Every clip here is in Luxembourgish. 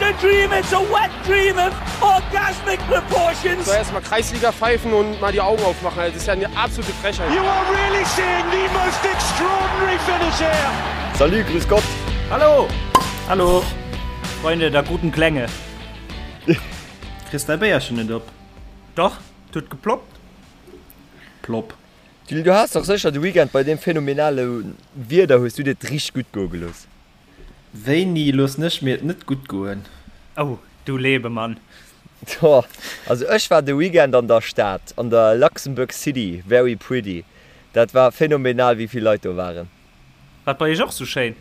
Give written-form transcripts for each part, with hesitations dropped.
a dream, it's a wet dream of orgasmic proportions. So erstmal Kreisliga pfeifen und mal die Augen aufmachen. Das ist ja eine absolute Frechheit. You are really seeing the most extraordinary finish here. Salut, grüß Gott. Hallo! Hallo! Freunde der guten Klänge. Kriss däi Béierchen net op? Doch, et huet geploppt. Plopp. Julie, du has dach sécher de Weekend bei deem phänomenale Wieder hues du dir et richteg gutt goe gelooss. Wéini loossen ech mir et net gutt goen? Oh, du Lebemann. Tjo, also ech war de Weekend an der Stad, an der Luxembourg City, very pretty. Dat war phänomenal wéi vill Leit do waren. War et bei iech och sou schéin?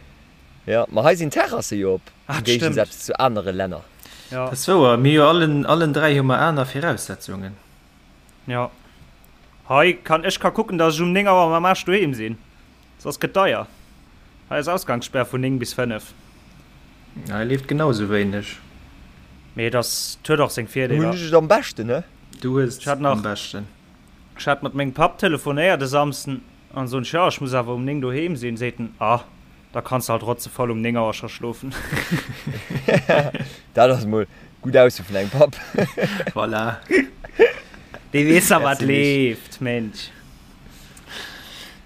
Jo, ma hei sinn d'Terrasse jo op, Ah, am dat stëmmt. Géigesaz zu anere Länner. Jo. Dat ass wouer, mir hu jo allen, allen 3 hu mer aner Viraussetzungen. Jo. Hei kann, ech ka kucken, dass ech um 9 Auer mam Aarsch doheem sinn. Soss gëtt deier. Hei ass Ausgangssperr vun 9 bis 5. Hei leeft genau sou wéineg. Mee et ass, et huet och seng Hunn Virdeeler. ech et am beschten, he? Du hues Ech hat et am nach, beschten. ech hat mat mengem Papp telefonéiert e Samsden an soen ech, jo, ech muss awer um 9 doheem sinn. Seet en, ah, da kanns de halt rotzevoll um 9 Auer scho schlofen. Dat ass mol gutt Ausso vun engem Papp. Voilà. Dee weess da wat Merci Mich. leeft, Mensch.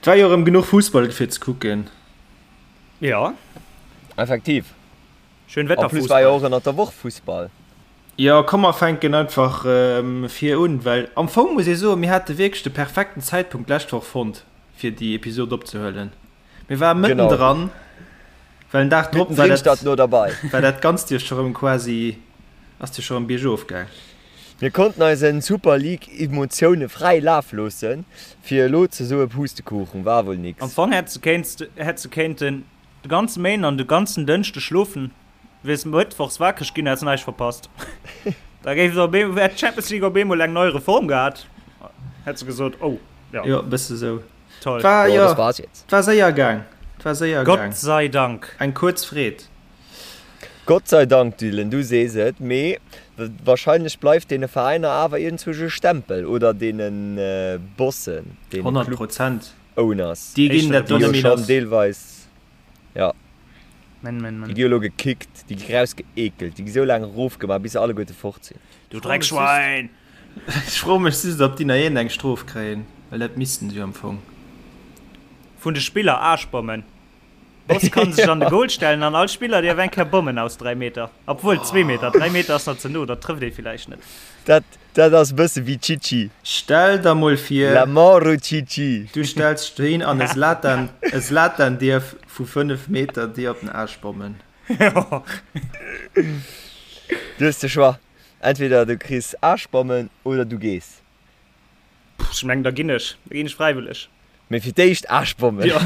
Et war jo erëm genuch Fussball fir ze kucken. Jo. Effektiv. Schön En plus war jo Wetterfussball. och ënnert der Woch Fussball. Jo, komm mer fänken einfach vir un, well am Fong muss ee soen, mir hate wierklech de perfekten Zäitpunkt d'lescht Woch fonnt, fir déi Episod opzehuelen. Mir ware Genau. mëttendran, well den Dag drop war Mittendrin dat, statt no derbei. war dat Ganzt jo scho rëm quasi, ass jo scho rëm biergof gaang. Mir konnten eisen Super League Emotioune fräi Laf loossen, fir elo ze soe Pustekuchen, war wuel Am nix. Fong hätt se kéinten de ganze Méinden an de ganzen Dënschde schlofen, wiers mëttwochs wakereg ginn, häss näischt verpasst. Da géif et op eemol, hätt d'Champions League op eemol eng nei Reform gehat, hätt se gesot, oh jo. Jo, e bësse sou. Toll. War, Jo, jo, das war's jetzt. 't war séier gaang, 't war séier gaang. Gott sei Dank. Eng kuerz Freed. Gott sei Dank, Dylan, du sees et, mee wahrscheinlech bleift deene Veräiner awer iergendzwousch e Stempel oder deene Bossen, deene 100 Prozent. Club-Owners, Déi ginn dat do déi jo net méi schonn lass. deelweis, jo, Men, men, déi men. gi jo elo gekickt, déi gi rausgeekelt, déi gi sou laang erofgemaach, bis se alleguerte fort sinn. Du Dreckschwein! Ech froe mech just, ob déi nach iergendeng Strof kréien, well dat missten se jo am Fong. Vun de Spiller, Aarschbommen. Boss kann sech an de Goal stellen an all Spiller dierf eng Kéier bommen aus 3 Meter. Obwuel 2 Meter, 3 Meter ass nach ze no, dat trëfft ee villäicht net. Dat, dat ass e bësse wéi Chichi. Stell der mol vir. La mort au Chichi. Du stells dech dohin an e Zlatan, e Zlatan dierf vu 5 Meter dir op den Aarsch bommen. Du hues de Choix, entweder du kriss Aarschbommen oder du gees. Pff, ech mengen da ginn ech, da ginn ech fräiwëlleg. Mee fir d'éischt Aarschbommen. Ja.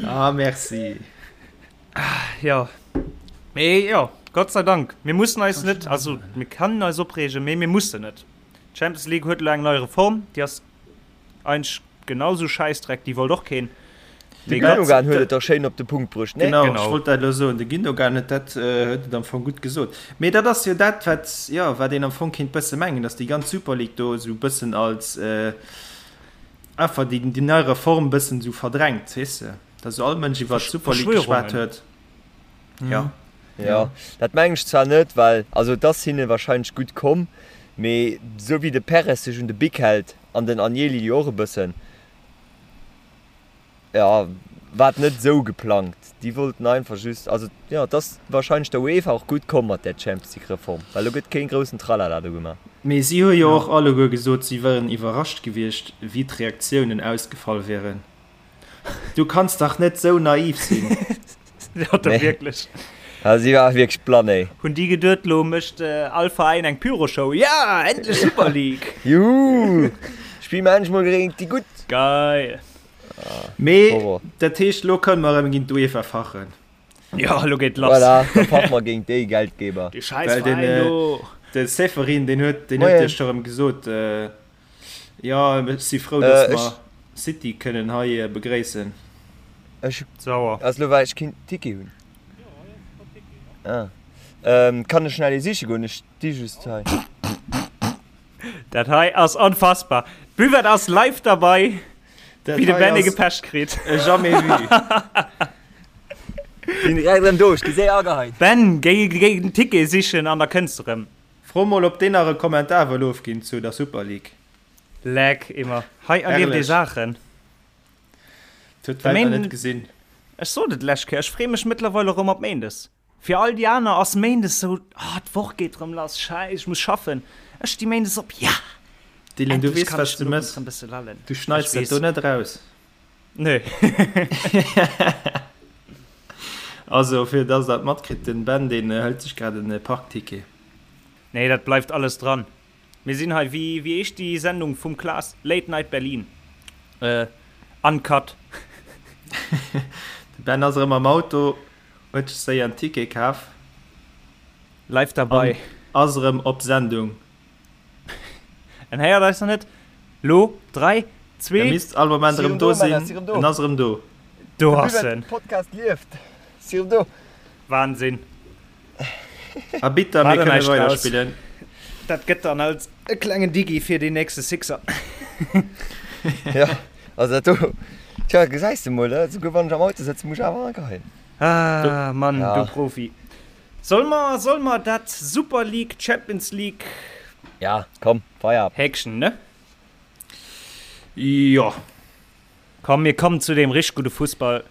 Ah, merci. Ja. Mee jo, Gott sei Dank, mir mussen eis net, also mir kennen eis opreegen, mee mir mussen net. D'Champions League huet elo eng nei Reform, déi ass Eigentlech genau sou Schäissdreck, déi wollt och keen. De Gündogan huet et dach schéin op de Punkt bruecht, nee? Genau, ech wollt dat elo soen. De Gündogan huet dat, huet et am Fong gutt gesot. Mee dat ass jo dat, wat, jo, wat een am Fong kéint bësse mengen, datt déi ganz Super League do esou bëssen als einfach déi, déi nei Reform bëssen esou verdrängt, weess de, datt esou all Mënsch iwwer d'Super League geschwat huet. Jo. Jo, dat mengen ech zwar net, well, also et ass hinne wahrscheinlech gutt komm, mee esou wéi de Perez sech un de Bic hält, An den Agnelli jo och e bëssen. Jo, war et net esou geplangt. Déi wollten einfach just, also jo, et ass wahrscheinlech der UEFA och gutt komm mat där Champions League Reform, well elo gëtt keen groussen Tralala do gemaach. Mee si hu jo och alleguer gesot, si wieren iwwerrascht gewiescht, wéi d'Reaktiounen ausgefall wieren. Du kanns dach net sou naiv sinn. Ja, da wierklech. Ja, si war wierklech blann, ey. Hunn déi geduet, lo mécht all Veräin eng Pyroshow. Ja, endlech Super League! Juhu! Spille mer endlech mol géint déi Gutt! Geil! Mee dat heescht, lo kënne mer erëm géint d'UEFA fachen. Ja, lo geet lass. Voilà, da fache mer géint déi Geldgeber. Déi scheiß Veräin do. De Ceferin, deen huet, deen huet jo scho erëm gesot, Jo, ech si frou, dass mer City kënnen hei begréissen. Ech Sauer. Ass lo well ech keen Ticket hunn. Ah. Kann ech schnell ee siche goen? Ech sti just hei. Dat hei ass onfassbar. D'Buvette ass live derbei, Dat wéi de hei Benny ass gepecht kritt. e jamais vu. Sinn direkt erëm do, ech gi séier ageheit. Ben, géi géi den Ticket sichen an da kënns de rëm. Fro mol op deen nach e Kommentar wëll ofginn zu der Super League. Leck immer. Hei erlieft ee Herrlech. Saachen. Huet De d'Welt nach Méinden, net gesinn. ech sot et d'lescht Kéier, ech free mech mëttlerweil erëm op Méindes. Fir all déi aner ass Méindes sou, ah d'Woch geet rëm lass, scheiss, ech muss schaffen. Ech sti Méindes op, ja! Dylan, du Endlech weess kann wat ech du den Owend mëss, rëm bësse lallen. du Ech schneits dat weess. do net eraus. Nö. Also fir dass der et matkritt, den Ben deen hëlt sech grad en Parkticket. Nee, dat bleift alles dran. Mir sinn hei, wéi wéi heescht déi Sendung vum Klaas? Late Night Berlin. Äh, uncut. De Ben ass erëm am Auto, huet sech séier en Ticket kaf. Live dabei. An ass erëm op Sendung. En héiert eis nach net. Lo, 3, 2. E misst all Moment erëm do sinn. En ass erëm do. Do ass en. Podcast lieft. Si erëm do. Wahnsinn. A bitter, mir kënne weiderspillen. Dat gëtt dann als e klengen Digi fir deen nächste Sixer. Ja, also dat do. Tja, gesäis de mol, esouguer wann ech am Auto sëtzen, muss ech awer ageheien. Ah, Mann, du Profi. Soll mer, soll mer dat Super League, Champions League. Ja, komm, Feierabend. Häkchen, ne? Jo. Komm, mir kommen zu deem richteg gudde Fussball.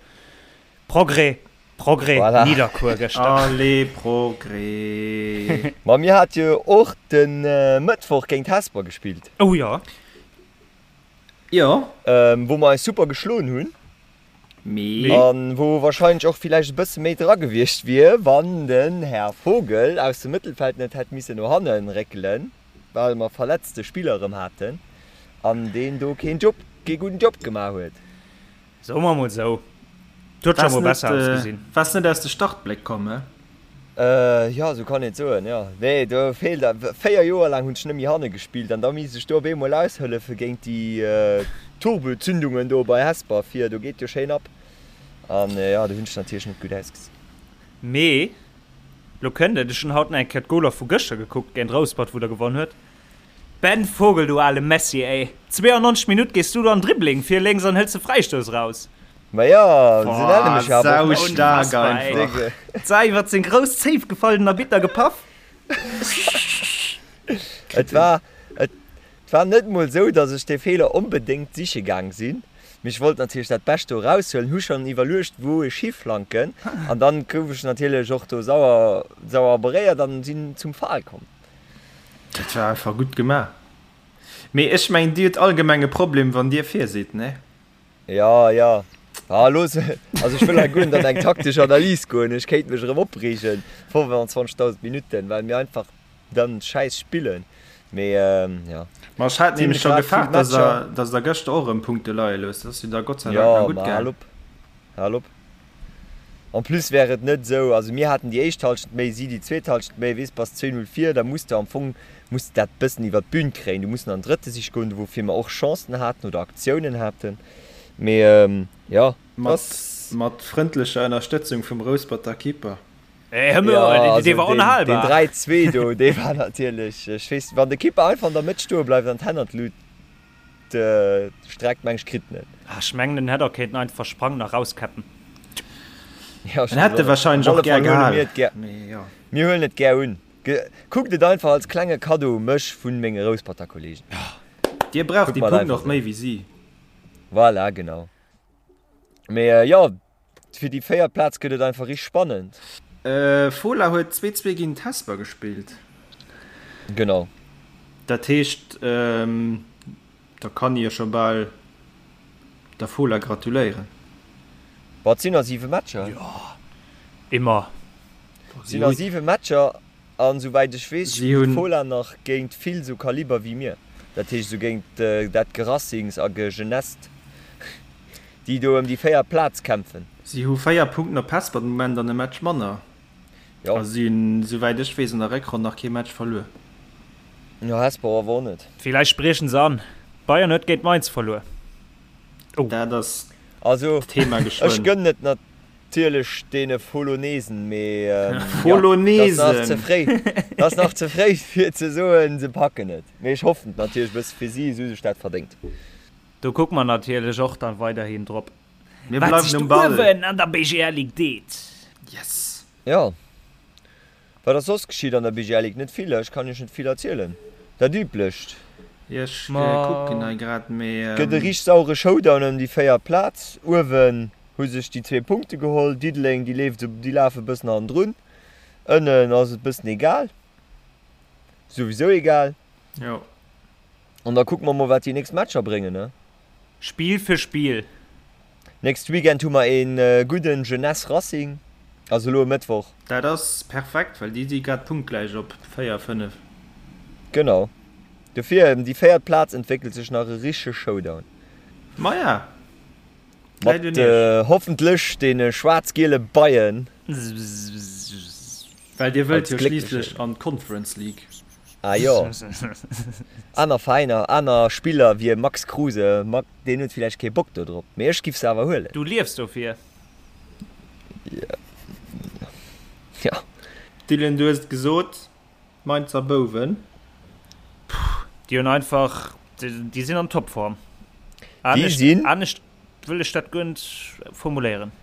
Progrès, Progrès, Voilà. Nidderkuer gëschter. Allez, Progrès. Ma mir hat jo och de Mëttwoch géint Hesper gespillt. Oh jo. Jo. Wou mer eis super geschloen hunn. Mee. An wou wahrscheinlech och villäicht e bësse méi dra gewiescht wier, wann den Här Vogel aus dem Mëttelfeld net hätt missen no hannen réckelen, well mer verletzte Spiller erëm haten an deen do keen Job, kee gudden Job gemaach huet. Soe mer mol sou, et huet scho mol besser ausgesinn. Waars net aus de Startbléck komm, he? Jo, esou kann een et soen, jo. Nee, do feelt a 4 Joer laang hunn ech net méi hanne gespillt an da misst ech do op eemol aushëllefe géint déi Turbozündungen do bei Hesper vir, do geet jo schéin ab an jo, do hunn ech natierlech net gutt ausgesinn. Mee lo kënnt et, ech hunn haut nach eng Kéier d'Goler vu gëschter gekuckt géint Rouspert, wou der gewonn huet. Ben Vogel, du ale Messi, ey! 92 Minutt gees du do an Dribbling vir lénks an hëls de Fräistouss raus. Ma jo, se nenne mech jo awer och Messi. Saustaark einfach. D'Sau iwwert seng grouss Zéif gefall, den Arbitter gepaff. Et war, et war net mol esou, datt ech dee Feeler onbedéngt siche gaang sinn, mee ech wollt natierlech dat Bescht do eraushuelen, hu schonn iwwerluecht, wou ech hiflanken an dann gouf ech natierlech och do sauer, sauer beréiert an sinn zum Fall komm. Dat war einfach gutt gemaach. Mee ech mengen dir hutt allgemeng e Problem wann dir vir sidd, ne? Jo, jo. Ah looss, also ech wëll hei guer net an eng taktesch Analys goen, ech kéint mech erëm opreegen, 25.000 Minutten, well mir einfach dann schäiss spillen. Mee jo. Ma ech hat nämlech scho gefaart, dass der, dass der gëschter och erëm Punkte leie loosst. Dat ass jo da Gott sei Dank nach Jo, gutt ma hal gaang. op, hal op. En plus wär et net esou, also mir haten déi éischt Halschent méi, si déi zweet Halschent méi, weess, bass 2, 0 vir, da muss de am Fong, muss de dat bëssen iwwert d'Bün kréien, du muss an den drëtte Sich goen, woufir mer och Chancen haten oder Aktiounen haten, mee jo, Mat, ass. mat frëndlecher Ënnerstëtzung vum Rousperter Keeper. Hey, hör Jo, mol, dee also war deen, deen onhalbar. 3, 2 do, dee war natierlech, ech weess, wann de Keeper einfach an der Mëtt stoe bleift an d'Hänn an d'Lut streckt, meng ech, kritt en et. Ah, ech mengen en hätt och kéinten einfach sprangen a rauskäppen. Ja, ech En hätt e weess och net. wahrscheinlech Op och alle gär Fall huele gehal, mir et gär. mee jo. Mir huelen et gär un. Kuckt et einfach als klenge Kaddo u mech vun menge Rousperter Kollegen. Dir braucht Kuckt déi mer et Punkten einfach och méi esou. wéi si. Voilà, genau. Mee jo, fir déi véiert Plaz gëtt et einfach richteg spannend. Fola huet 2, 2 géint Hesper gespillt. Genau. Dat heescht, da kann ee jo scho bal der Fola gratuléieren. Boah, et sinn nach 7 Matcher. Jo, immer. Et sinn nach 7 Matcher an souwäit ech weess Si spillt hunn. d'Fola nach géint vill sou Kaliber wéi mir. Dat heescht sou géint dat Gerassings a Gegenest, déi do ëm déi véiert Plaz kämpfen. Si hu 4 Punkten op Hesper den Moment an e Match manner. Jo. A si hunn, souwäit ech weess, an der Réckronn nach kee Match verluer. Jo, Hesper awer och net. Villäicht briechen se an. Bayern huet géint Mainz verluer. Oh. Dat ass Also, d'Thema ech geschwënn. gënnen et natierlech deene Folonesen, mee jo, dat ass nach ze Folonesen! fréi. Dat ass nach ze fréi fir ze soen, se packen et. Mee ech hoffen et natierlech e bësse fir si, esou sech dat verdéngt. Do kucke mer natierlech och dann weiderhin drop, Mir wat bleiwen sech um do Ball. uewen an der BGL Ligue deet. Yes! Jo. Wat ass soss geschitt an der BGL Ligue? Net vill, ech kann iech net vill erzielen. Dat üblecht. Jo, ech kucken hei grad, mee. Gëtt e richteg sauere Showdown ëm déi véiert Plaz. Uewen hu sech déi zwee Punkte geholl. Diddeleng, déi leeft esou, déi lafe e bëssen hannendrun. Ënnen ass et bëssen egal. Souwisou egal. Jo. An da kucke mer mol, wat déi nächst Matcher bréngen, ne? Spill fir Spill. Nächst Weekend hu mer een gudden Jeunesse Racing, also elo e Mëttwoch. Dat ass perfekt, well déi si grad punktgläich op 4, 5. Genau. Dofir, em déi véiert Plaz entwéckelt sech nach e richtege Showdown. Maja, läit un Mat iech. hoffentlech deene schwaarz-giele Beien. Well dir wëllt Als jo gléckleche. schliisslech an d'Conference League. Ah jo. Aner Veräiner, aner Spiller wéi e Max Kruse, deen huet villäicht kee Bock do drop, mee ech giff se awer huelen. Du liefs dofir. Jo. Dylan, du hues et gesot, d'Mainzer Bouwen. Puh, déi hunn einfach, déi sinn an Topform. Déi sinn. Anescht wëll ech dat guer net formuléieren.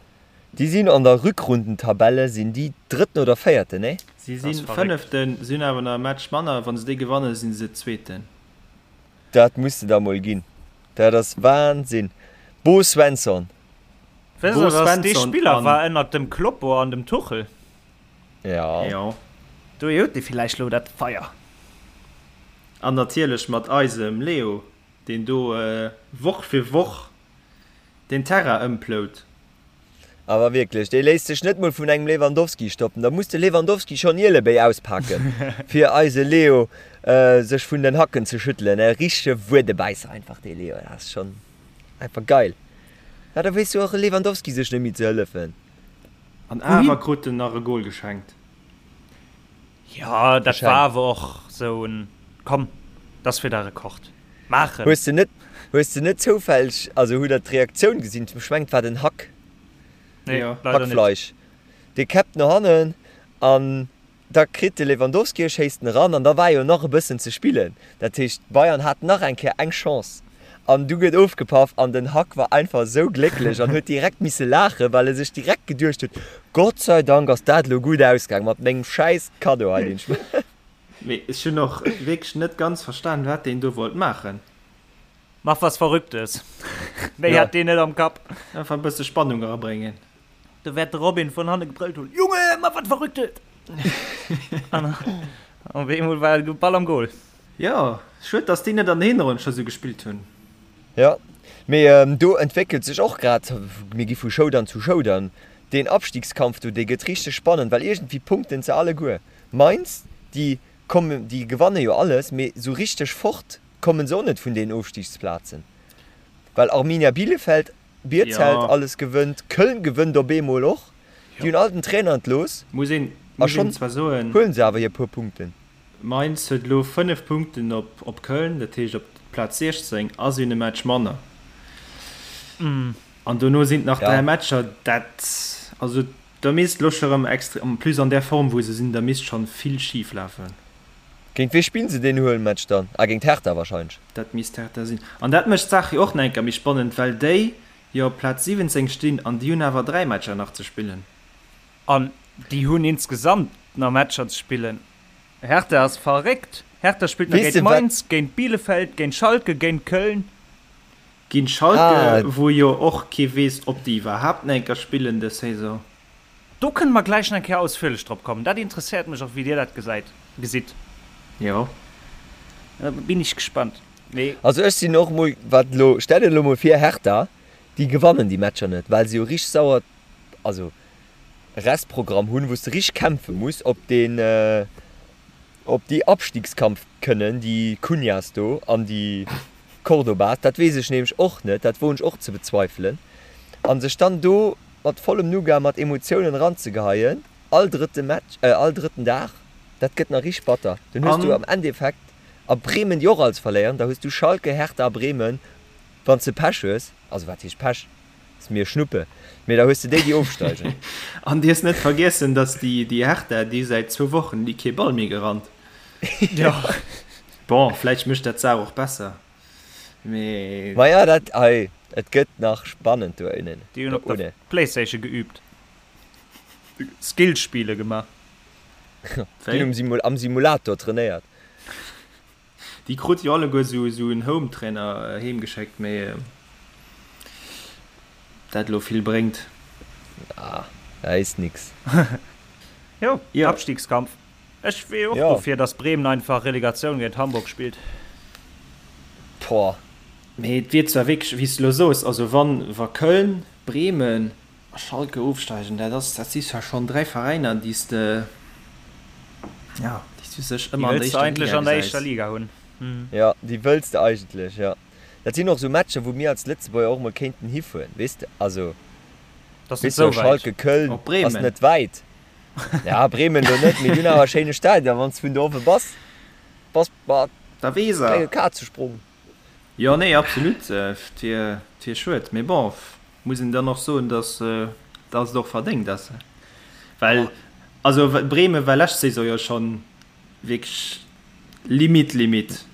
Déi sinn an der Rückrundentabelle sinn déi Drëtten oder Véierten, nee? Si si Fënneften, si hunn awer nach e Match manner. Wa se dee gewannen, si se Zweeten. Dat muss de der mol ginn. Dat ass Wahnsinn. Bo Svensson. Weess Bo der, dass dee Svensson Spiller an. war ënnert dem Kloppo an dem Tuchel? Ja. Jo. Do huet dee villäicht lo dat Feier. An natierlech mat eisem Leo, deen do Woch fir Woch den Terrain ëmplout. Awer wierklech, dee léisst sech net mol vun engem Lewandowski stoppen. Da muss de Lewandowski schonn Ielebéi auspaken, fir eise Leo sech vun den Hacken ze schüttelen. E richtege Wuedebäisser einfach, dee Leo. Dat ass schonn einfach geil. Ja, da weess jo och e Lewandowski sech net méi ze hëllefen. An awer krut en nach e Gol geschenkt. Jo, dat war awer och sou en, komm, dat ass fir der Rekord maachen. Hues de net, hues de net zoufälleg, also hutt der d'Reaktioun gesinn, ech mengen et war den Hack, Nee, leider net. Hackfleisch, dee käppt no hannen an da kritt de Lewandowski, e schéisst en eran an da war jo nach e bëssen ze spillen, dat heescht d'Bayern haten nach eng Kéier eng Chance an du gëtt ofgepaff an den Hack war einfach esou glécklech an huet direkt misse laachen, well e sech direkt geduecht huet, Gott sei Dank ass dat elo gutt ausgaang mat mengem schäiss Kaddo hei, deen ech. Mee ech hunn och wierklech net ganz verstan, wat deen do wollt maachen. Mach was Verrücktes. Méi hat deen net am Kapp. Einfach e bësse Spannung erabréngen. Do wäert de Robin vun hanne gebrëllt hunn, Junge, mach wat Verrücktes! An op eemol war de Ball am Goal. Jo, schued, dass déi net an der Hinronn scho sou gespillt hunn. Jo, mee do entwéckelt sech och grad, mir gi vu Showdown zu Showdown, deen Abstiegskampf do, dee gëtt richteg spannend, well iergendwéi punkten se alleguer. Mainz, déi kommen, déi gewanne jo alles, mee sou richteg fort kommen se och net vun deenen Ofstiegsplazen, well Arminia Bielefeld, Bierzelt alles gewënnt, Köln gewënnt op eemol och, déi hunn all den Trainer entlooss a schonn huelen se awer hir puer Punkten. Mainz huet elo 5 Punkten op Köln, dat heescht op d'Plaz 16, a si hunn e Match manner. An dono sinn et nach 3 Matcher, dat, also Da misst lo scho rem extre, en plus an där Form wou se sinn, da misst schon vill schief lafen. Géint wee spillen se deen Huelmatch dann? Ah géint Hertha wahrscheinlech. Dat misst Hertha sinn. An dat mécht d'Saach jo och nach eng Kéier méi spannend, well déi jo op Plaz 17 stinn an déi hunn awer 3 Matcher nach ze spillen. An déi hunn insgesamt nach Matcher ze spillen. Hertha ass verréckt. Hertha spillt nach Weess géint de wat? Mainz, géint Bielefeld, géint Schalke, géint Köln. Géint Schalke, wou jo och kee weess, ob déi iwwerhaapt nach eng Kéier spillen dës Saison. Do kënne mer gläich nach eng Kéier ausführlech drop kommen. Dat interesséiert mech och, wéi Dir dat gesäit, gesitt. Jo. Da bin ich gespannt. Mee. Also ech sinn och mol, wat elo, stell dir elo mol vir, Hertha, déi gewannen déi Matcher net, well se jo richteg sauer, also Restprogramm hunn, wou s de richteg kämpfe muss op deen, Ob déi Abstiegskampf kënnen, déi Cunhas do an déi Cordobas, dat weess ech nämlech och net, dat woen ech och ze bezweifelen. A sech dann do mat vollem Nougat, mat Emotiounen eranzegeheien, all drëtte Match, all drëtten Dag, dat gëtt nach richteg batter. Dann hues du am Endeffekt a Bremen, déi och alles verléieren, da hues du Schalke, Hertha a Bremen, wann s de Pech hues, also wat heescht Pech? Ass mir Schnuppe, mee da hues de déi déi ofsteigen. An dierfs net vergiessen, dass déi déi Hertha, déi säit zwou Wochen déi kee Ball méi gerannt. Jo. Bon, vläicht mécht dat d'Saach och besser, mee. Maja, dat hei, et gëtt nach spannend do ënnen. Déi hunn op der Playstation geübt. Skillspiele gemaach. Déi hunn am Simulator trainéiert. Déi krute jo alleguer esou en Home-Trainer heem geschéckt, mee dat elo vill bréngt. Ah, da is nix. Jo, Abstiegskampf. Ech wier och dofir, dass Bremen einfach Relegatioun géint Hamburg spillt. Boah. Mee et wier zwar wierklech, wéi s de elo soos, also wann, wa Köln, Bremen a Schalke ofsteigen, dat ass, dat si zwar schonn 3 Veräiner, déi s de, jo, déi s du sech ëmmer an der éischter Liga gesäis. Déi wëlls de eigentlech an der éischter Liga hunn. Jo, déi wëlls de eigentlech, jo. Dat sinn och esou Matcher, wou mir als Lëtzebuerger och mol kéinten hifueren, weess de, also, weess de, Schalke, Köln ass net wäit. Ja, Bremen elo net, mee déi hunn awer e schéine Stadion, wann s de vun do owe bass, bass mat klenge Kazesprong. Jo, nee, absolut, et wier, et wier schued, mee bon, muss een dann och soen, dass, dass et och verdéngt ass, well, also Bremen war lescht Saison jo schonn wierklech limite, limite.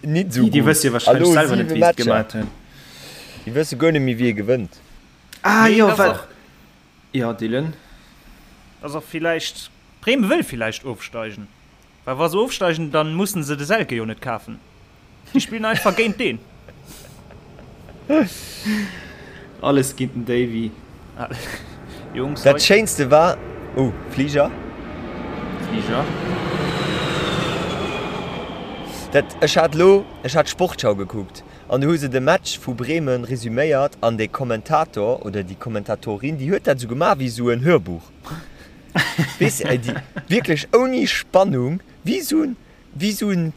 Nit esou gutt. Déi wësse jo warscheinlech selwer net, wéi se et gemaat hunn. Déi wësse guer net méi, wie gewënnt. Ah jo, well, jo, Dylan? Ass och villäicht, Bremen wëll villäicht ofsteigen. Well wa se ofsteigen, dann mussen se de Selke jo net kafen. Déi spillen einfach géint deen. Alles géint den Davy. Jungs, Dat schéinste war, oh, Fliger. Fliger. Dat, ech hat lo, ech hat d'Sportschau gekuckt an do hu se de Match vu Bremen resüméiert an de Kommentator oder déi Kommentatorin, déi huet dat esou gemaach wéi esou en Hörbuch. Weess de, déi wierklech ouni Spannung, wéi esou en, wéi esou en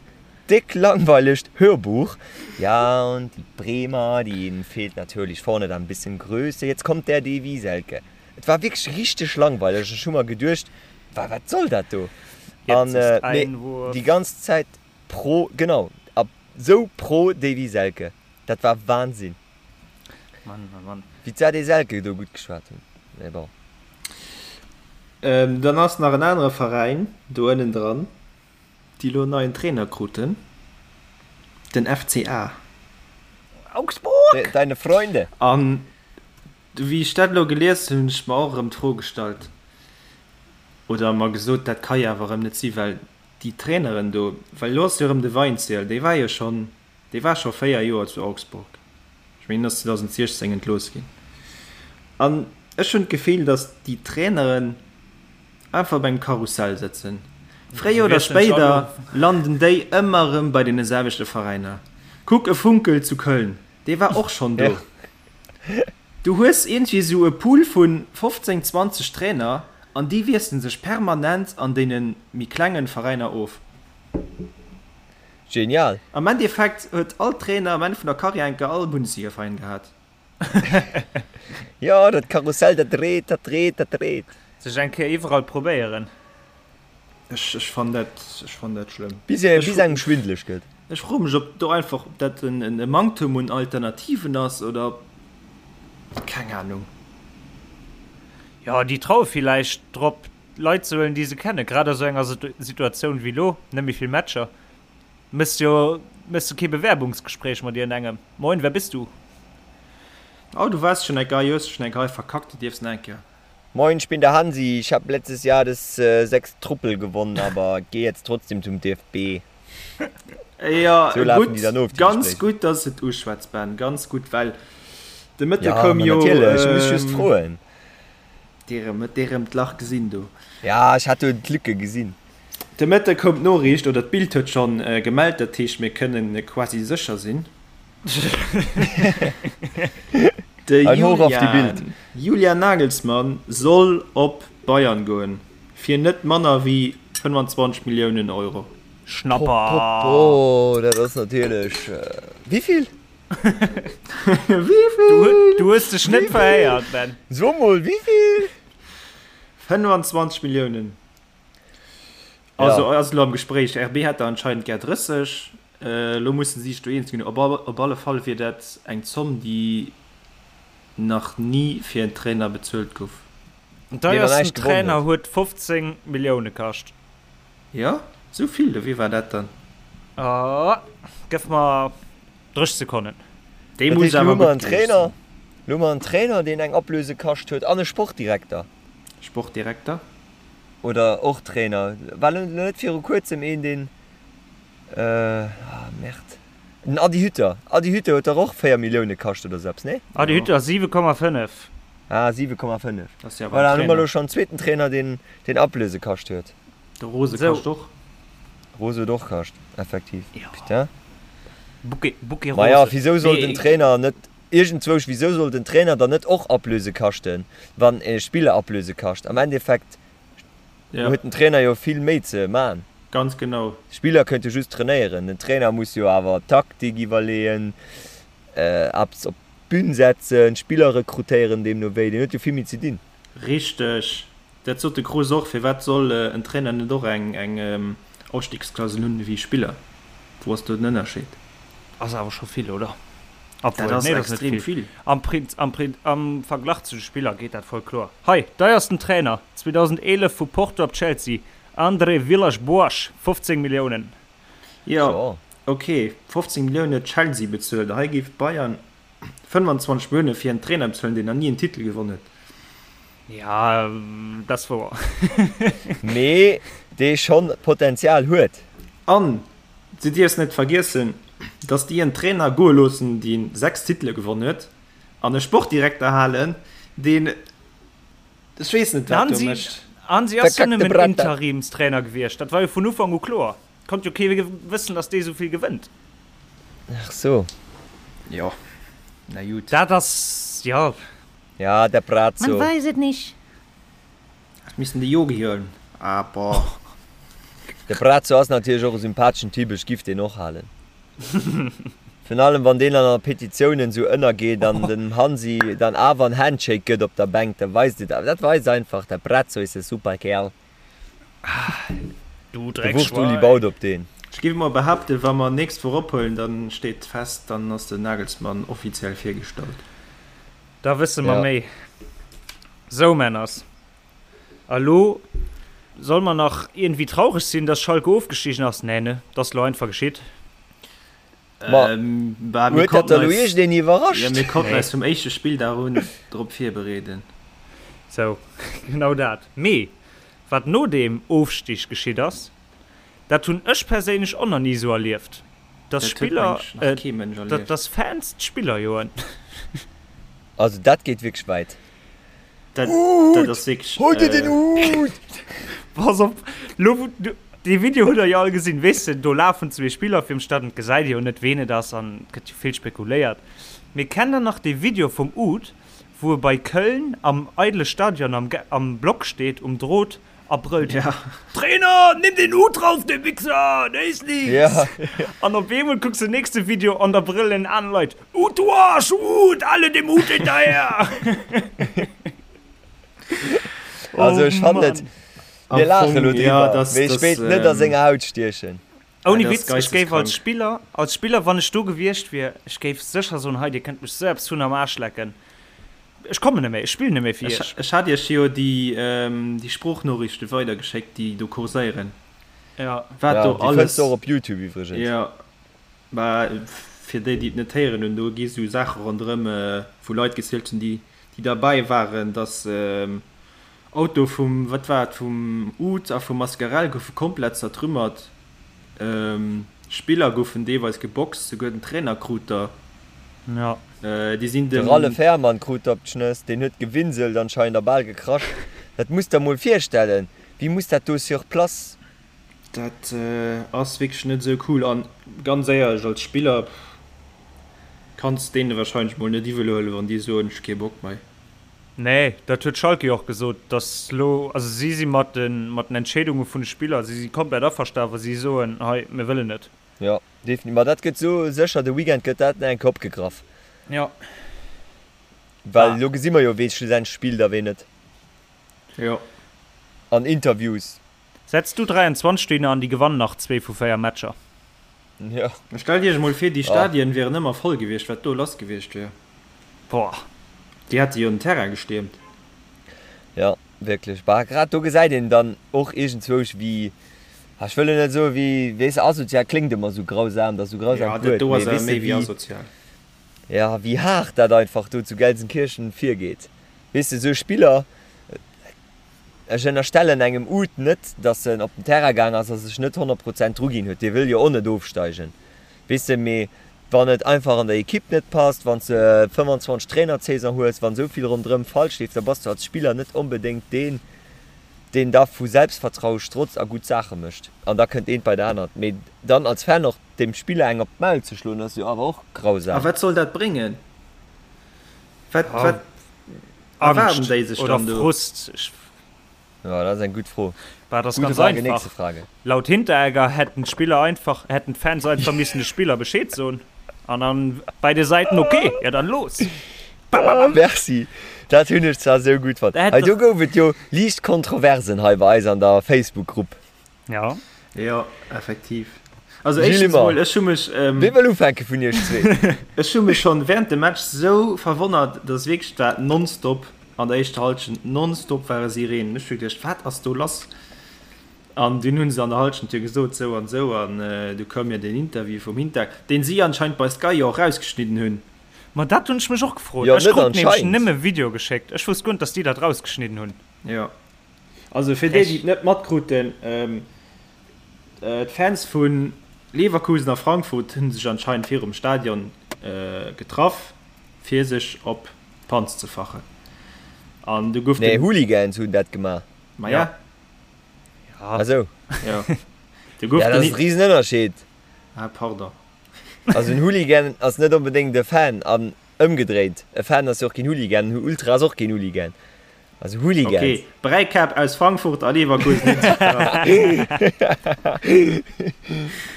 déck langweilegt Hörbuch. Ja, und die Bremer, denen fehlt natürlich vorne dann ein bisschen Größe, jetzt kommt der Davy Selke. Et war wierklech richteg langweileg. Ech hu mer geduecht, wa wat soll dat do? An mee déi ganz Zäit pro, genau, a sou pro Davy Selke, dat war Wahnsinn. Mann, Mann, Mann. Wéi d'Sade Selke do gutt geschwat hunn, mee bon. Dann ass nach en anere Veräin do ënnendran, déi elo en neien Trainer kruten, den FCA. Augsburg! Deine Freunde! An wéi ech dat elo gelies hunn, hunn ech mer och erëm d'Fro gestallt, oder mer gesot, dat ka jo awer erëm net sinn, well déi Traineren do, well elo ass jo erëm de Weinzierl, dee war jo schonn Dee war scho 4 Joer zu Augsburg. Ech mengen, en ass 2016 entlooss ginn. An ech hunn d'Gefill, datt déi Traineren einfach op engem Karussell sëtzen. Fréier oder spéider landen déi ëmmer erëm bei deene selwechte Veräiner. Kuck e Funkel zu Köln, dee war och schonn do. Du hues iergendwéi esou e Pool vu 15, 20 Trainer an déi wiessele sech permanent an deene méi klengen Veräiner of. Genial! Am Endeffekt huet all Trainer am Enn vun der Karriär enker all Bundesligaveräin gehat. Jo, dat Karussell, dat dréit, dat dréit, dat dréit. Sech eng Kéier iwwerall probéieren. Ech, ech fannen dat, ech fannen dat schlëmm. Bis e, bis engem schwindeleg gëtt. Ech froe mech, ob do einfach, ob dat en, en Manktum un Alternativen ass oder ob, keng Ahnung. Jo, déi traue villäicht drop, Leit ze huelen, déi se kennen. Grad a sou enger Situatioun wéi elo, net méi vill Matcher, méchs jo, méchs du kee Bewerbungsgespréich mat iergendengem. Moin, wer bist du? Oh, du waars schon eng Gei, hues schon eng Gei verkackt, du dierfs nach eng Kéier. Moin, ich bin der Hansi, ich hab letztes Jahr das 6 Truppel gewonnen, aber geh jetzt trotzdem zum DFB. Jo, Sou lafen déi dann of, déi ganz Gespréicher. gutt, dass et uschwätz, Ben, ganz gutt, well de Mëtte Ja, koum ma jo, natierlech, ech muss just froen. Dir huet dir erëm d'Lach gesinn do. Ja, ech hat do d'Lücke gesinn. De Mëtte koum d'Noriicht, oder d'Bild huet schonn gemellt, dat heescht mir kënnen quasi sécher sinn. De Ein Hoch auf die Bild. Julian, Julian Nagelsmann soll op Bayern goen, fir net manner wéi 25 Milliounen Euro. Schnapper! Popopo, dat ass natierlech. Wéivill? Wéivill? Du hues dech net verhéiert, Ben. So mol, wéivill? 25 Milliounen. Also ass elo am Gespréich. RB hätt der anscheinend gär 30. Elo musse si sech do eens ginn. Op op alle Fall wier dat eng Zomm, déi nach ni fir en Trainer bezuelt gouf. Den deiersten Trainer huet 15 Millioune kascht. Jo, esou vill? Wie war dat dann? Gëff mer 30 Sekonnen. Dee muss awer gutt gewiescht sinn. Lo hu mer en Trainer, deen eng Ablöse kascht huet an e Sportdirekter. Sportdirekter. Oder och Trainer. War lo net viru kuerzem een deen, ah merde, den Adi Hütter. Adi Hütter huet dach och 4 Millioune kascht oder sou eppes, nee? Adi Hütter 7,5. Ah 7,5. Voilà, dann hu mer elo schonn en zweeten Trainer deen deen Ablöse kascht huet. De Rose kascht och. Rose huet och kascht, effektiv. Putain. Bouquet, Bouquet Rose. Maja, wisou soll den Trainer net Iergendzwousch, wisou soll den Trainer dann net och Ablöse kaschten, wann e Spiller Ablöse kascht? Am Endeffekt huet den Trainer jo vill méi ze man. Ganz genau. D'Spiller kënnte just trainéieren, den Trainer muss jo awer Taktik iwwerleeën, eppes op d'Bün setzen, Spiller rekrutéieren, deemno wéi, deen huet jo vill méi ze dinn. Richteg. Dat sot de Kroes och, Firwat soll en Trainer net och eng Ausstiegsklausel hunn ewéi e Spiller? Wou ass do den Ënnerscheed? Ass awer scho vill, oder? Dat ass extrem vill. Am Am Verglach zu de Spiller geet dat voll kloer. Hei, deiersten Trainer 2011 vu Porto op Chelsea, André Villas-Boas, 15 Milliounen. Jo, ok, 15 Milliounen huet Chelsea bezuelt. Hei géif Bayern 25 Millioune fir en Trainer bezuelen, deen nach ni en Titel gewonn huet. Ja, dat ass wouer. Mee dee schonn Potenzial huet. An du dierfs net vergiessen, dass déi en Trainer goe loossen, dee 6 Titele gewonn huet, an e Sportdirekter halen, deen, ech weess net, wat do mécht. Hansi ass jo nëmmen Interimstrainer gewiescht, dat war jo vun Ufank u kloer. Konnt jo kee wëssen, dass dee souvill gewënnt. Ach so. Jo, na jut. Dat ass, jo. Ja, der Brazzo. Man weiß et nicht. Ech missten de Yogi huelen. Ah, boah. De Brazzo ass natierlech och e sympatheschen Typ, ech giff deen och halen. Virun allem wann deen an der Petitiounen esou ënnergeet an dem Hansi dann awer en Handshake gëtt op der Bänk, da weist et, dat weist einfach, der Brazzo is e super Kerl. Du De Wurscht-Uli baut op deen. Ech géif emol behaapten, wa mer nächst Woch ophuelen, dann steet fest, dann ass den Nagelsmann offiziell virgestallt. Da wësse mer méi. Sou, Männers, a lo solle mer nach iergendwéi traureg sinn, dass Schalke ofgestigen ass? Nee, ne? Dat ass lo einfach geschitt. Ma huet dat da lo iergendeen iwwerrascht? Jo, mir konnten eis vum éischte Spilldag un drop virbereeden. Sou, genau dat. Mee wat no deem Ofstig geschitt ass, dat hunn ech perséinlech och nach ni esou erlieft, dass Spiller, dass Fans d'Spiller joen. Also dat geet wierklech wäit. Dat, dat ass wierklech. Hol dir den Hut! Pass op, lo wou du, dee Video hutt der jo all gesinn, weess de, do lafen zwee Spiller virum Stadion, et gesäit ee jo net ween et ass an et gëtt jo vill spekuléiert. Mee kennt der nach dee Video vum Uth, wou e bei Köln am eidele Stadion am, am Block steet, um Drot a brëllt, Ja. Trainer, nimm den Hut rauf, de Wichser, der is nix! Ja. An op eemol kucks de nächste Video an da brëllen aner Leit, Hut, du Arsch, Hut, alle dem Hut hinterher! Also Oh ech fannen et, Mann. mir Am laache Fong, elo ja, driwwer, das, mee ech das, wéilt net a ähm, senger Haut stiechen. Ouni dat ass Witz, ech géif als geisteskrank. Spiller, als Spiller, wann ech do gewiescht wier, ech géif sécher soen, hei, dir kënnt mech sou eppes vun am Aarsch lecken, ech kommen net méi, ech spillen net méi fir Ech, iech. ech hat iech jo déi, déi Sproochnoriichte weidergeschéckt, déi do kurséieren. Ja. Wat Ja, do déi fënns alles. de och op Youtube iwwregens. Jo, mä fir déi, déi et net héieren hunn, do gi sou Saache ronderëm, wou Leit gezielt hunn, déi, déi derbäi waren, dass Auto vum, wat war et, vum Uth a vum Mascarell goufe komplett zertrümmert. Spiller goufen deelweis geboxt, souguer den Trainer krut der. Ja. Déi sinn De dem. Ralle Fährmann krut der op d'Schnëss, deen huet gewinselt anscheinend a bal gekrasch. Dat muss der mol virstellen, wéi muss dat do sur place. Dat ass wierklech net esou cool an ganz éierlech, als Spiller kanns deene warscheinlech mol net iwwel huelen, wann déi soen, ech hu kee Bock mei. Nee, dat huet Schalke jo och gesot, datt elo, also si si mat de mat den Entscheedunge vun de Spiller, si si komplett averstanen, wa si soen, hei mir wëllen net. Jo, definitiv. Ma dat gëtt sou sécher, de Weekend gëtt dat nach eng Kéier opgegraff. Jo. Well elo gesi mer jo, wee schlussendlech spillt a wee net. Jo. An Interviews. Setz du 23 dohinner an déi gewannen nach zwee vu véier Matcher. Jo. Stellt iech emol vir, déi Stadien wieren ëmmer voll gewiescht, wat do lass gewiescht wier. Boah. Déi hätte jo den Terrain gestiermt. Jo, wierklech. Bah, grad do gesäit een dann och iergendzwousch, wéi, ech wëll elo net soen, wéi, weess de, asozial kléngt ëmmer esou grausam, dat ass esou Jo, grausamt dat Wuert, do mee ass awer weess de, méi wéi wéi, asozial. jo, wéi haart dat einfach do zu Gelsenkirchen virgeet. Weess de, esou Spiller. Ech ënnerstellen engem Uth net, datt en op den Terrain gaang ass a sech net 100 Prozent dru ginn huet. Dee wëll jo och net ofsteigen, weess de. Mee wann et einfach an der Ekipp net passt, wann s de 25 Trainer d'Saison hues, wann esou vill ronderëm falsch leeft, da bass du als Spiller net onbedéngt deen, deen da vu Selbstvertraue strotzt a gutt Saache mécht. An da kënnt eent bei dat anert. Mee dann als Fan och dem Spiller eng op d'Maul ze schloen, ass jo awer och grausam. A wat soll dat bréngen? Wat, wat erwaarden déi sech dann do? Frust. Ja, dat ass eng gutt Fro. Bah, dat ass ganz Frage, einfach. Frage. Laut Hinteregger hätten d'Spiller einfach, hätten d'Fans einfach missen de Spiller Bescheed soen. An dann beide Säiten okay, ja dann los. Bam, bam, bam. Merci. Dat hunn ech zwar sou gutt fonnt. Hei do gouf et jo liicht Kontroversen hei bei eis an der Facebook-Grupp. Ja. Jo, effektiv. Also éischtens mol, ech hu mech. Ähm, Wee wëll ufänke vun iech zwee? Ech hu mech schonn während dem Match sou verwonnert, dass wierklech dat nonstop an der éischter Halschent nonstop ware Sirenen. Ech hu geduecht, wat ass do lass? An dunn hu se an der Halschent jo gesot, sou an sou, an du koum jo deen Interview vum Hinter, deen si anscheinend bei Sky jo och rausgeschnidden hunn. Ma dat hunn ech mech och gefrot. Jo, Ech net krut nämlech anscheinend. nëmme Video geschéckt. Ech wousst guer net, dass déi dat rausgeschnidden hunn. Jo. Also fir déi, déi et net matkruten, d'Fans vu Leverkusen a Frankfurt hu sech anscheinend virum Stadion getraff, fir sech op d'Panz ze fachen. An du gouf den. Nee, Hooligans hunn dat gemaach. Maja. Ah sou. Jo. Du gouf den. Ja, dat ass e Risenënnerscheed. Ah, pardon. Also en Hooligan ass net onbedéngt e Fan an ëmgedréit, e Fan ass jo och keen Hooligan, en Ultra ass och keen Hooligan. Also Hooligans. Ok, Bräikäpp aus Frankfurt a Leverkusen hunn sech getraff.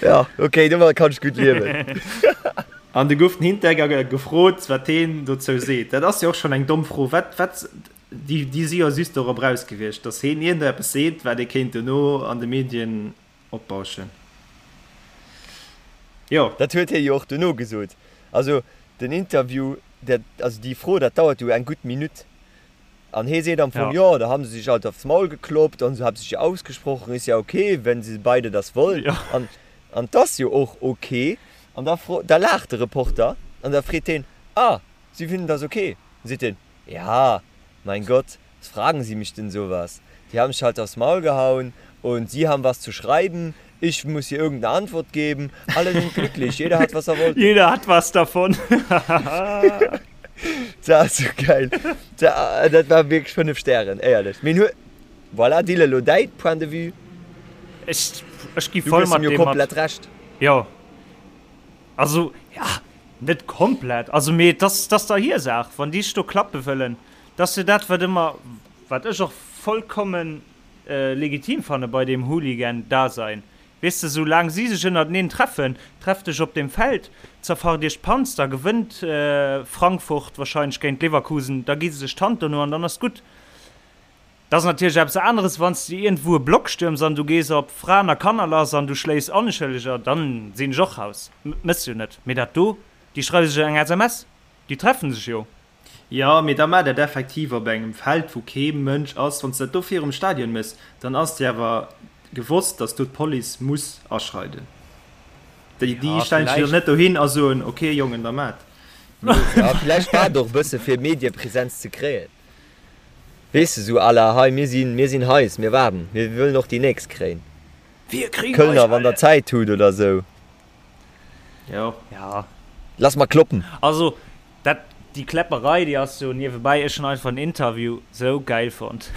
Ja, ok, domadder kann ech gutt liewen. An du gouf den Hinteregger gefrot, wat heen dozou seet. Dat ass jo och schonn eng domm Fro. Wat, wat, déi, déi si jo just dorop raus gewiescht, datt heen iergendeppes seet, wat ee kéint dono an de Medien opbauschen. Jo. Dat huet hie jo och dono gesot. Also den Interview, dat, also déi Fro, dat dauert jo eng gutt Minutt. An hee seet am Fong, jo, da haben se sich halt aufs Maul gekloppt an se haben sich ausgesprochen, ist ja okay, wenn se beide das wollen. An, an 't ass jo och okay. An da fro, da laacht de Reporter an da freet heen, ah, Sie finden das okay? Dann seet hien, ja, mein Gott, was fragen Sie mich denn sowas? Die haben sich halt aufs Maul gehauen und Sie haben was zu schreiben, ich muss hier irgendeine Antwort geben, alle sind glücklich, jeder hat was er wollte. Jeder hat was davon. Dat ass sou geil. Dat war wierklech 5 Stären, éierlech. Mee hu, voilà, Dylan, elo däi Point de vue. Ech, ech gi voll mat deem mat. Komplett Recht. Jo, also, ja, net komplett, also mee et ass, et ass der hir Saach, wann déi sech do klappe wëllen. Dat ass jo dat, wat ëmmer, wat ech och vollkommen legitim fanne bei deem Hooligan-Dasein. Weess de, sou laang si sech ënnerteneen treffen, trefft dech op dem Feld, zerfacht iech d'Panz, da gewënnt Frankfurt wahrscheinlech géint Leverkusen, da gi se sech d'Hand dono an dann ass gutt. Dat ass natierlech eppes aneres, wann s de iergendwou e Block stürms an du gees op Fraen a Kanner lass an du schléis Onschëlleger, dann sinn ech och raus. Mëss jo net. Mee dat do, déi schreiwe sech eng SMS, déi treffen sech jo. Jo, mee da maach dat effektiv op engem Feld, wou kee Mënsch ass. Wann s de dat do virum Stadion méchs, dann ass dir awer gewosst, datt do d'Police muss aschreiden. Déi, déi Ja, stellen sech jo villäicht. net dohin a soen, ok Jongen, da maacht. Ja, villäicht war et och e bësse fir Mediepresenz ze kréien. Weess de, sou à la, hei mir sinn, mir sinn heiß, mir waarden, mir wëllen och déi nächst kréien. Wir kriegen euch Kölner, wann der alle! Zäit hutt oder sou. Jo. Ja. Lass mer kloppen! Also, Dat, déi Kläpperei, déi ass jo niewebäi. Ech hunn einfach den Interview sou gäil fonnt.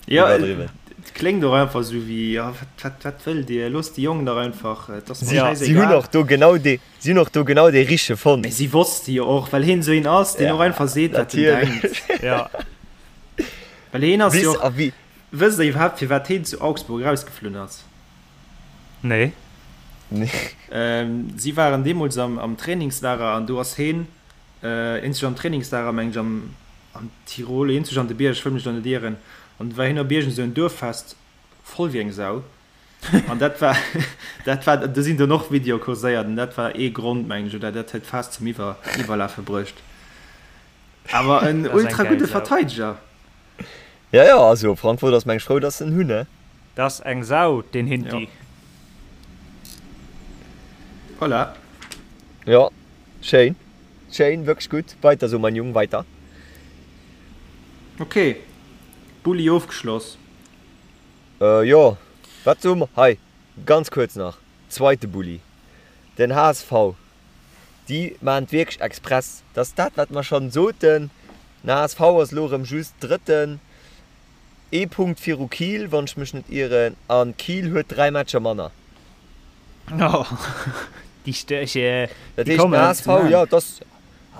Jo, et kléngt och einfach sou wéi, jo, wat, wat, wat wëllt Dir? Loosst déi Jongen dach einfach, et ass mer Si, si hunn schäisegal. och do genau dee, si hunn och do genau dee Richtege fonnt. Mee si wosste jo och, well hien sou een ass, deen och einfach seet, wat en Natierlech. denkt. Ja. Well hien ass jo Bis och, a wéi. wësst Der iwwerhaapt, firwat hien zu Augsburg erausgeflunn ass? Nee. Si waren deemools am Trainingslager an do ass heen eenzeg am Trainingslager, meng ech, am Tirol, eenzeg an de Bierg, ech wëll mech do net ieren, an du war heen op iergend esou en Duerffest, voll wéi eng Sau. An dat war, dat war, do sinn dunn och Videoe kurséiert an dat war ee Grond, meng ech, oder dat huet d'Faass zum Iwwerlafe bruecht. Awer en ultra gudde Verteideger. Ja, ja, also Frankfurt ass meng ech frou, dass se en hunn, ne? Dat ass eng Sau, deen Hinti. Ja. Voilà. Jo, schéin, schéin, wierklech gutt. Weiter sou, mein Jung, weiter. Ok. Bulli ofgeschloss? Jo, wat soe mer hei? Ganz kuerz nach, zweite Bulli, den HSV, déi maachen et wierklech express. Dat ass dat, wat mer schonn soten. Den HSV ass elo erëm just Drëtten, ee Punkt viru Kiel, wann ech mech net ieren, a Kiel huet 3 Matcher manner. Oh, déi Störche, Dat heescht, den HSV, jo, et ass,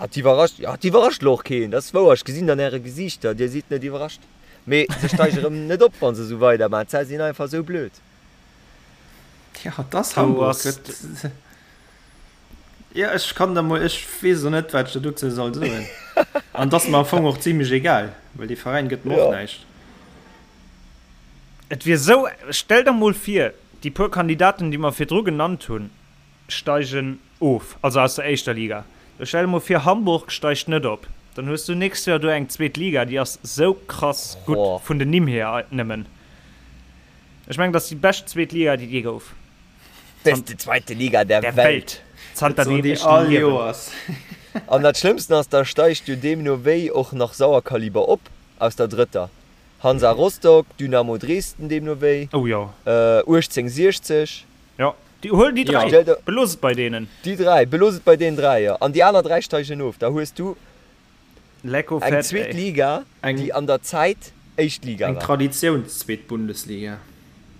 et iwwerrascht, jo, et iwwerrascht elo och keen, dat ass wouer. Ech gesinn an äre Gesiichter, dir sidd net iwwerrascht. Mee se steige erëm net op, wa se esou weidermaachen. D'Zäit sinn einfach esou blöd. Ja, et ass Hamburg. Et, ja, ech kann der mol, ech weess och net, wat ech der dozou soll soen. An et ass mer am Fong och zimlech egal, well dee Veräin gëtt mer och näischt. Et wier esou, stell der mol vir, déi puer Kandidaten, déi mer virdru genannt hunn, steigen of, also aus der éischter Liga. Da stell der mol vir, Hamburg steigt net op, dann hues du nächst Joer do eng zweet Liga, déi ass sou krass gutt vun den Nimm hier nëmmen. Ech mengen, dat ass déi bescht zweet Liga, déi et jee gouf. Beste zweite Liga der Welt. Zanter deem ech liewen. An dat Schlëmmsten ass, da steigt jo deemno wéi och nach Sauerkaliber op aus der drëtter. Hansa Rostock, Dynamo Dresden deemno wéi, 1860. Jo, déi, huel déi 3, belooss et bei deenen. Déi 3, belooss et bei deenen 3, jo. An déi aner 3 steigen of. Da hues du Lecko eng fett, zweet ey. Liga, déi an der Zäit éischt Liga Eng war. Traditiounszweet-Bundesliga.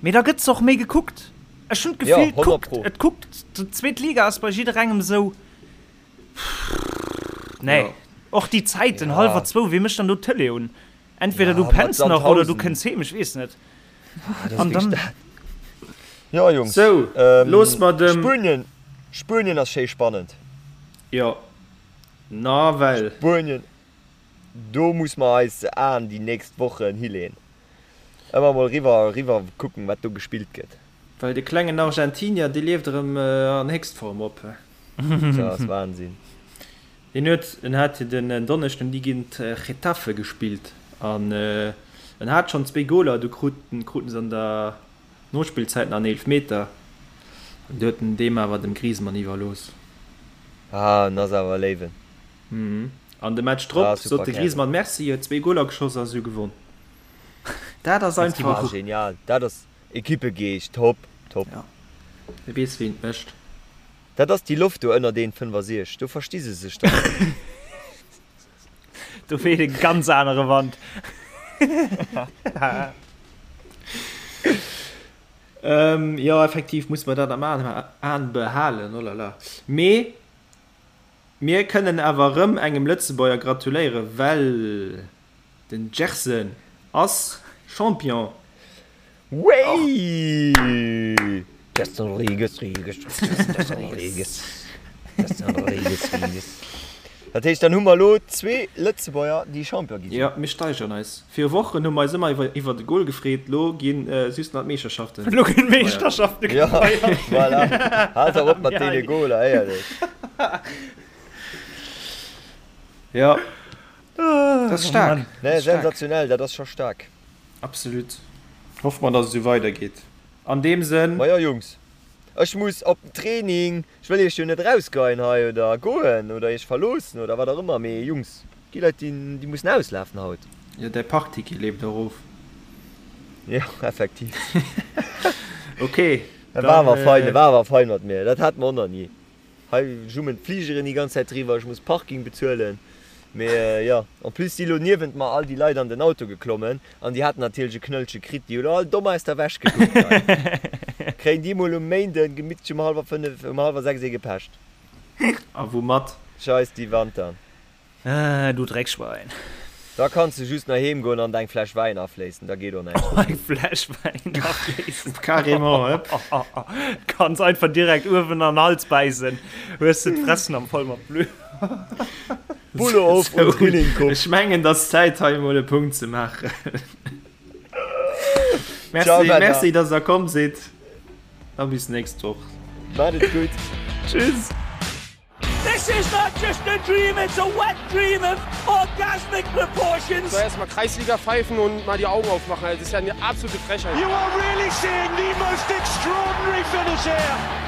Mee da gëtt se och méi gekuckt. Ech hunn Jo, d'Gefill, et 100 kuckt, pro. et kuckt, d'zweet Liga ass bei jidderengem esou, nee. Jo. Och déi Zäiten, Ja. hallwer zwou, wee mécht dann do d'Tëlee un? Entweder Ja, du mat penns nach oder du Sandhausen. kënns heem, ech weess net. Ah, das An dann. dat. Ja, Jungs. Sou, ähm, looss mer dem. Spuenien, Spuenien ass schéi spannend. Jo, nawell. Spuenien, do muss mer eis Aen déi nächst Wochen hileen. Ëmmer mol riwwer, riwwer kucken, wat do gespillt gëtt. Well de klengen Argentinier, dee lieft erëm an Héchstform op. Dat ass Wahnsinn. Hien huet, en hat jo den Donneschden déi géint Getafe gespillt an en hat schonn zwéi Goler, du kruten kruten se an der Nospillzäit nach en Eelefmeter an du huet en deem awer dem Griezmann iwwerlooss. Ah, en ass awer e Léiwen. Mhm. An de Match drop Ah, super sot de Kärel. Griezmann Merci, huet zwéi Goler geschoss a se hu gewonn. Dat ass Ah, einfach. genial. Dat ass Equippegeescht. Top, top. Ja, e weess wéi en et mécht. Dat ass déi Loft do ënner deen 65, do versti se sech dann. Do weht e ganz anere Wand. Ähm, jo, effektiv muss mer dat am Aen behalen, oh la la. Mee mir kënnen awer erëm engem Lëtzebuerger gratuléieren, well Den Gerson ass Champion. Wéi! Gerson Rodrigues, Rodrigues, Gerson Rodrigues, Gerson Rodrigues, Rodrigues. Dat heescht, dann hu mer elo zwee Lëtzebuerger, déi Champion gi sinn. Jo, mir steigeren eis. Viru Wochen hu mer eis ëmmer iwwer de Gol gefreet, lo gi just nach d'Meeschterschaften Lo ginn gefeiert. d'Meeschterschafte Jo, gefeiert. voilà. Haalt dach op mat deene Goler, éierlech. Jo. Dat ass staark. Nee, sensationell, dat ass scho staark. Absolut. Hoffe mer, dass et esou weidergeet. An deem Sënn. Majo Jungs, ech muss op den Training. Ech wëll iech jo net erausgeien hei oder goen oder iech verloossen oder wat och ëmmer, mee Jungs, gi Leit déi déi mussen auslafen haut. Jo, däi Parkticket leeft och of. Jo, effektiv. Ok, Dat war dann. awer fein, dat war awer fein mat mir, dat hat mer och nach ni. Hei jummen d'Fligeren déi ganz Zäit driwwer, ech muss Parking bezuelen. Mee jo, en plus si lo niewent mer all déi Leit an den Auto geklommen an déi haten natierlech e Knëllche kritt. Déi hu lo all domm aus der Wäsch gekuckt hei. Kréien déi mol um Méinden gemittlech um hallwer 5, um hallwer 6 ee gepecht. A woumat? Scheiss déi Wantern. Ah, du Dreckschwein. Da kanns de just nach heem goen an der eng Fläsch Wäin afléissen, da geet och näischt méi. Eng Fläsch Wäin afléissen. Carrément, hëpp. Kanns einfach direkt uewen an den Hals bäissen, hues de d'Fressen am voll mat Blut. Pullo of und Drilling-Kupp. Ech mengen, et ass Zäit hei emol e Punkt ze maachen. Ciao, Merci, Männer. merci, dass der komm sidd. A bis nächst Woch. Maat et gutt. Tschüss. This is not just a dream, it's a wet dream of orgasmic proportions. So erstmal Kreisliga pfeifen und mal die Augen aufmachen. Das ist ja eine absolute Frechheit. You are really seeing the most extraordinary finish here.